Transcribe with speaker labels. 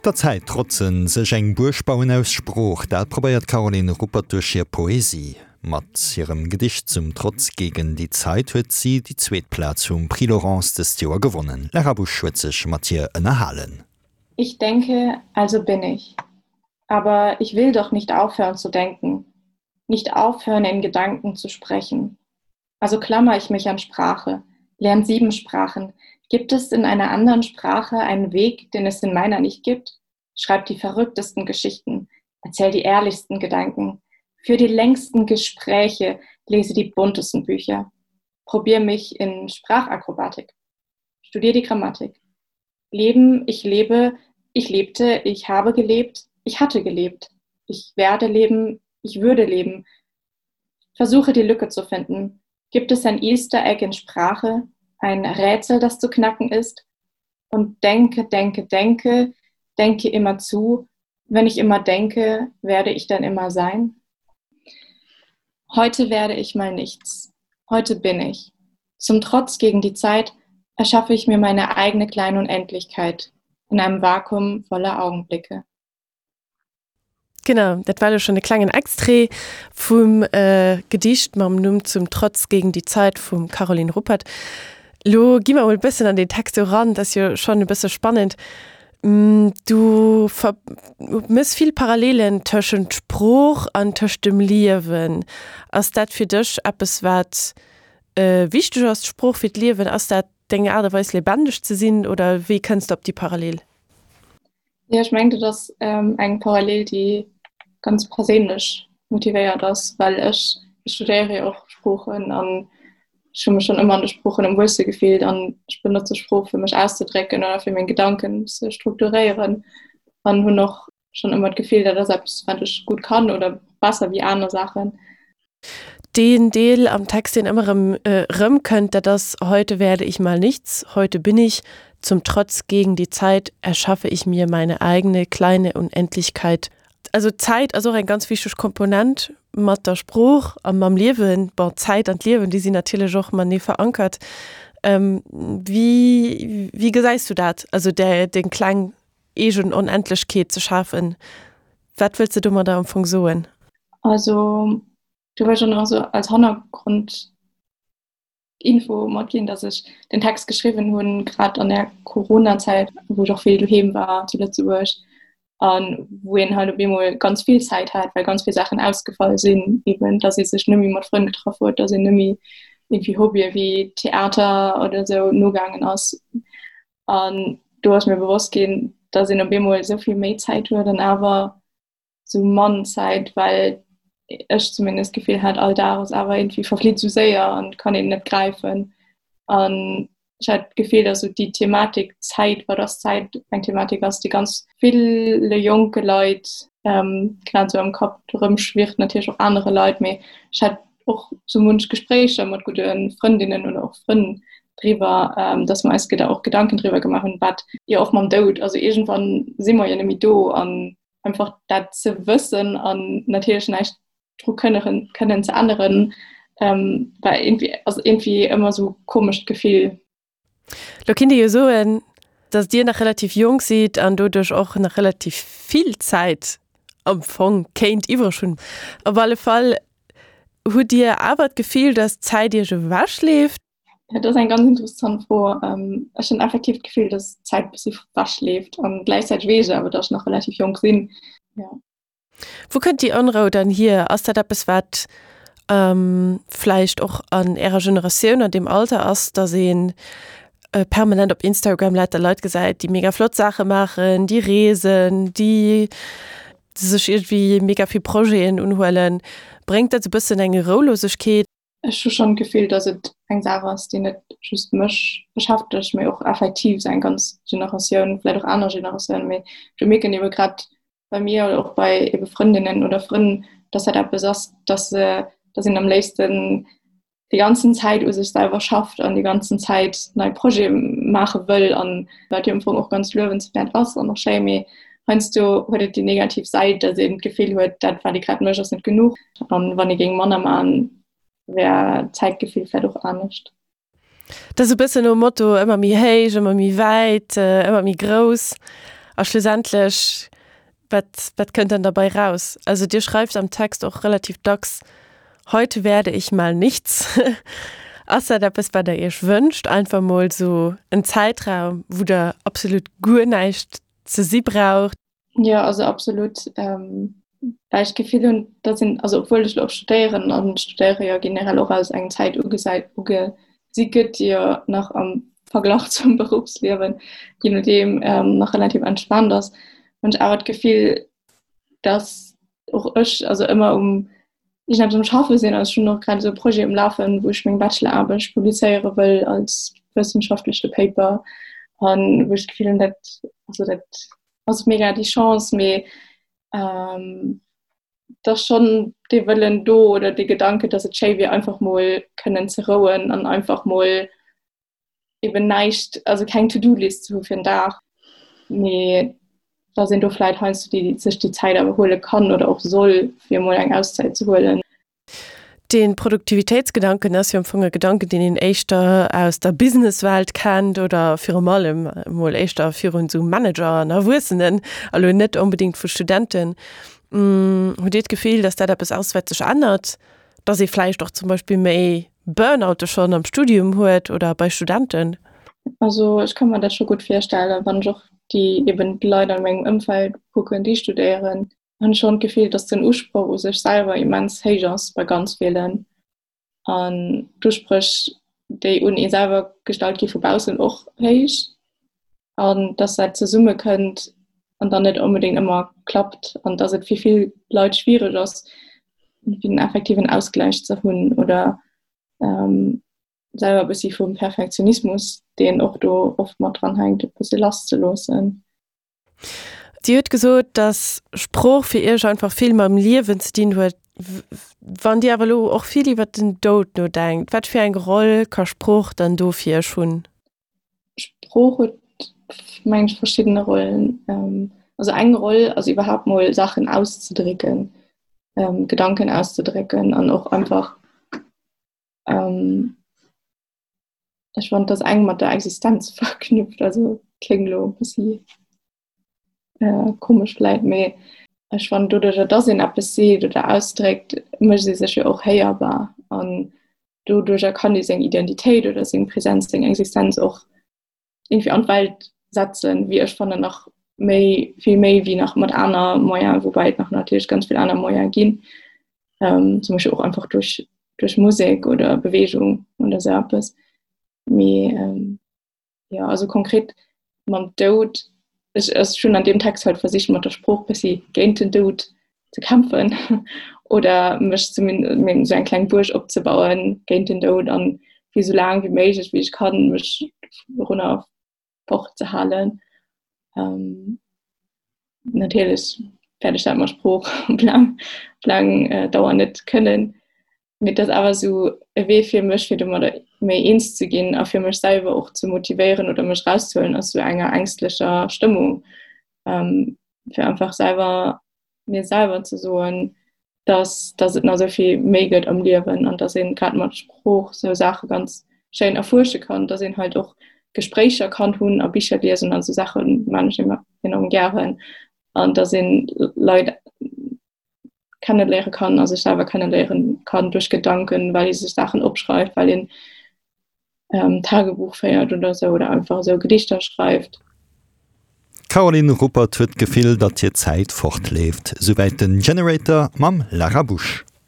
Speaker 1: Der Zäit trotzen, sech eng Buerg bauen aus Sprooch, dat probéiert d'Caroline Ruppert duerch hir Poesie. Mat hirem Gedicht Zum Trotz gegen die Zeit huet si déi zweet Plaz vum Prix Laurence dëst Joer gewonnen. D'Lara Busch huet sech mat hir ënnerhalen.
Speaker 2: Ich denke, also bin ich. Aber ich will doch nicht aufhören zu denken, nicht aufhören in Gedanken zu sprechen. Also klammer ich mich an Sprache, lerne sieben Sprachen. Gibt es in einer anderen Sprache einen Weg, den es in meiner nicht gibt? Schreib die verrücktesten Geschichten, erzähl die ehrlichsten Gedanken, führ die längsten Gespräche, lese die buntesten Bücher. Probier mich in Sprachakrobatik. Studier die Grammatik. Leben, ich lebe, ich lebte, ich habe gelebt, ich hatte gelebt. Ich werde leben, ich würde leben. Versuche die Lücke zu finden. Gibt es ein Easter Egg in Sprache, ein Rätsel, das zu knacken ist? Und denke, denke, denke, denke immer zu. Wenn ich immer denke, werde ich dann immer sein? Heute werde ich mal nichts. Heute bin ich. Zum Trotz gegen die Zeit erschaffe ich mir meine eigene kleine Unendlichkeit in einem Vakuum voller Augenblicke.
Speaker 3: Genau, dat war elo schonn e klengen Extrait vum Gedicht mam Numm Zum Trotz gegen die Zeit vum Caroline Ruppert. Lo gi mer emol e bëssen an den Text eran, dat ass jo schonn e bësse spannend. Du mëss vill Parallelen tëschent Sprooch an tëscht dem Liewen. Ass dat fir dech eppes, wat wichteg ass, d'Sprooch fir d'Liewen? Ass dat deng Aart a Weis lebendeg ze sinn oder wéi kënns de op déi Parallel?
Speaker 2: Jo, ech mengen, dat ass eng Parallel, déi ganz perséinlech motivéiert ass, well ech studéiere jo och Sproochen an ech hu mech schonn ëmmer an de Sproochen am wuelste gefillt an ech benotze Sprooch, fir mech auszedrécken oder fir meng Gedanken ze strukturéieren an hunn och schonn ëmmer d'Gefill, dat ass eppes, wat ech gutt kann oder besser wéi aner Saachen.
Speaker 3: Deen Deel am Text, deen ëmmer erëm erëmkënnt, dat ass, Heute werde ich mal nichts, heute bin ich, zum Trotz gegen die Zeit erschaffe ich mir meine eigene kleine Unendlichkeit. Also d'Zäit ass och eng ganz wichteg Komponent mat der Sprooch a mam Liewen. Bon, d'Zäit an d'Liewen, déi sinn natierlech och matenee verankert. Wéi, wéi gesäis du dat, also deng kleng eegen Onendlechkeet ze schafen? Wat wëlls de domadder am Fong soen?
Speaker 2: Also do wëll ech och nach esou als Hannergrondinfo matginn, dass ech den Text geschriwwen hunn, grad an der Coronazäit, wou ech och vill doheem war zu Lëtzebuerg an wou een halt op eemol ganz vill Zäit hat, well ganz vill Saachen ausgefall sinn, eben dass ee sech net méi mat Frënn getraff huet, dass een net méi irgendwie Hobbye wéi Theater oder esou nogaangen ass. An do ass mir bewosst ginn, dass een op eemol esou vill méi Zäit huet an awer sou mann Zäit, well ech zumindest d'Gefill hat, all Dag ass awer irgendwie verflitt sou séier an kann een net gräifen. An ech hat d'Gefill, dass sou déi Thematik Zäit, wat ass Zäit, eng Thematik ass, déi ganz ville jonke Leit grad sou am Kapp erëmschwirrt, natierlech och anere Leit, mee ech hat och sou munch Gespréicher mat gudde Frëndinnen oder och Frënn driwwer, dass mer eis och Gedanken driwwer gemaach hunn, wat jo och mam Doud, also iergendwann si mer jo net méi do an einfach dat ze wëssen an natierlech näischt dru kënnen kënnen ze änneren, war irgendwie, ass irgendwie ëmmer sou komescht Gefill.
Speaker 3: Lo kinnt ee jo soen, datt Dir nach relativ jonk sidd an doduerch och nach relativ vill Zäit am Fong kéint iwwreg hunn. Op alle Fall, hutt Dir awer d'Gefill, datt d'Zäit Iech ewechleeft?
Speaker 2: Dat ass eng ganz interessant Fro. Ech hunn effektiv d'Gefill, datt d'Zäit e bëssi ewechleeft an gläichzäiteg weess ech awer, datt ech nach relativ jonk sinn. Jo.
Speaker 3: Wou kënnt déi Onrou dann hier? Ass dat eppes, wat vläicht och an Ärer Generatioun, an deem Alter ass, datt ee permanent op Instagram lauter Leit gesäit, déi mega flott Saache maachen, déi reesen, déi sech iergendwéi mega vill Projeten unhuelen? Bréngt dat esou e bëssen eng Roulosegkeet?
Speaker 2: Ech hu schonn d'Gefill, datt et eng Saach ass, déi net just mech beschäftegt, mee och effektiv esou eng ganz Generatioun, vläicht och aner Generatiounen, mee ech mierken ebe grad bei mir oder och bei ebe Frëndinnen oder Frënn, dass dat eppes ass, dass se, dass een am léifsten déi ganzen Zäit u sech selwer schafft an déi ganzen Zäit nei Projete maache wëll an wat jo am Fong och ganz luewenswäert ass an och schéi, mee heiansdo huet et déi negativ Säit, dass een d'Gefill huet, dat wat ee grad mécht ass net genuch an wann ee géing manner maachen, wär d'Zäitgefill vläicht och anescht.
Speaker 3: Dat ass e bëssen nom Motto, ëmmer méi héich, ëmmer méi wäit, ëmmer méi grouss. A schlussendlech, wat, wat kënnt dann derbei raus? Also Dir schreift am Text och relativ dacks, Heute werde ich mal nichts. Ass dat eppes, wat Der Iech wënscht, einfach mol sou en Zäitraum, wou Der absolut guer näischt ze si braucht?
Speaker 2: Jo, also absolut. Well ech d'Gefill hunn, datt een, also obwuel ech elo och studéieren an studéiere jo generell och als eng Zäit ugesäit, ugesi gëtt, déi jo nach am Verglach zum Beruffsliewen, je nodeem, nach relativ entspaant ass, hunn ech awer d'Gefill, datt och ech also ëmmer um iergendeppes um Schaffe sinn. Also ech hunn och grad esou e Projet um Lafen, wou ech meng Bacheloraarbecht publizéiere wëll als wëssenschaftleche Paper an wou ech d'Gefill hunn, dat, also dat ass mega déi Chance, mee ähm, dass schon dee Wëllen do oder dee Gedanke, dass et schéi wier einfach mol kënnen ze rouen an einfach mol eben näischt, also keng To-Do-List ze hu fir den Dag, mee dass een do vläit heiansdo déi, sech déi Zäit awer huele kann oder och soll, fir emol eng Auszäit ze huelen.
Speaker 3: De Produktivitéitsgedanken ass jo am Fong e Gedanken, deen een éischter aus der Businesswelt kennt oder virum allem emol éischter virun esou Manager an Erwuessenen, a lo net onbedéngt vu Studenten. Hutt Dir d'Gefill, datt dat eppes ass, wat sech ännert, datt ee vläicht och zum Beispill méi Burnoute schonn am Studium huet oder bei Studenten?
Speaker 2: Also ech ka mer dat scho gutt virstellen, wann ech och déi eben d'Leit an mengem Ëmfeld kucken, déi studéieren, hunn ech schonn d'Gefill, dass den Usproch u sech selwer immens héich ass bei ganz villen an d'Uspréch, déi un ee selwer gestallt gi vu baussen och héich an dass dat zesumme kënnt an dann net onbedéngt ëmmer klappt an dass et fir vill Leit schwiereg ass, fir den effektiven Ausgläich ze hunn oder ähm, selwer e bëssi vum Perfektionismus, deen och do oft mat dran hänkt, e bësse lass ze loossen.
Speaker 3: Dir hutt gesot, dass Sprooch fir Iech einfach vill mam Liewen ze dinn huet. Wann Dir awer elo och vill iwwer den Doud nodenkt, wat fir eng Roll ka Sprooch dann do fir Iech hunn?
Speaker 2: Sprooch huet, mengen ech, verschiddene Rollen. Also eng Roll ass iwwerhaapt mol Saachen auszedrécken, Gedanken auszedrécken an och einfach, Ech fand dass eng mat der Existenz verknüpft, also kléngt elo e bëssi äh, komesch vläit, mee ech fand doduercher dass een eppes seet oder ausdréckt, mécht ee sech jo och héierbar an doduercher kann ee seng Identitéit oder seng Präsenz, seng Existenz och irgendwie an d'Welt setzen, wéi ech fannen nach méi vill méi wéi nach mat aner Moyen, woubäi et nach natierlech ganz vill aner Moyen ginn, ähm, zum Beispiel och einfach duerch duerch Musek oder Bewegung oder sou eppes. Mee ähm, ja also konkret mam Doud ech ech hunn an deem Text halt versicht mat der Sprooch bëssi géint den Doud ze kämpfen oder mech zumindest mir sou eng kleng Buerg opzebauen géint den Doud an fir sou laang wéi méiglech wéi ech kann mech dorunner fort ze halen. Ähm, natierlech wäert ech dat mat Sprooch op laang, op laang äh, Dauer net kënnen. Mee et ass awer sou e Wee fir mech, fir domadder méi eens ze ginn a fir mech selwer och ze motivéieren oder mech rauszehuelen aus sou enger ängstlecher Stëmmung. Ähm, fir einfach selwer mir selwer ze soen, dass, dass et nach esou vill méi gëtt am Liewen an dass een grad mat Sprooch sou Saache ganz schéin erfuersche kann, dass een halt och Gespréicher kann hunn a Bicher liesen an sou Saache man ech immer enorm gären an dass een Leit kenneléiere kann a sech selwer kenneléieren kann duerch Gedanken, well ee sech Saachen opschreift, well een ähm, Tagebuch féiert oder sou oder einfach esou Gedichter schreift.
Speaker 1: D'Caroline Ruppert huet d'Gefill, datt hir Zäit fortleeft. Souwäit den Generator mam Lara Busch.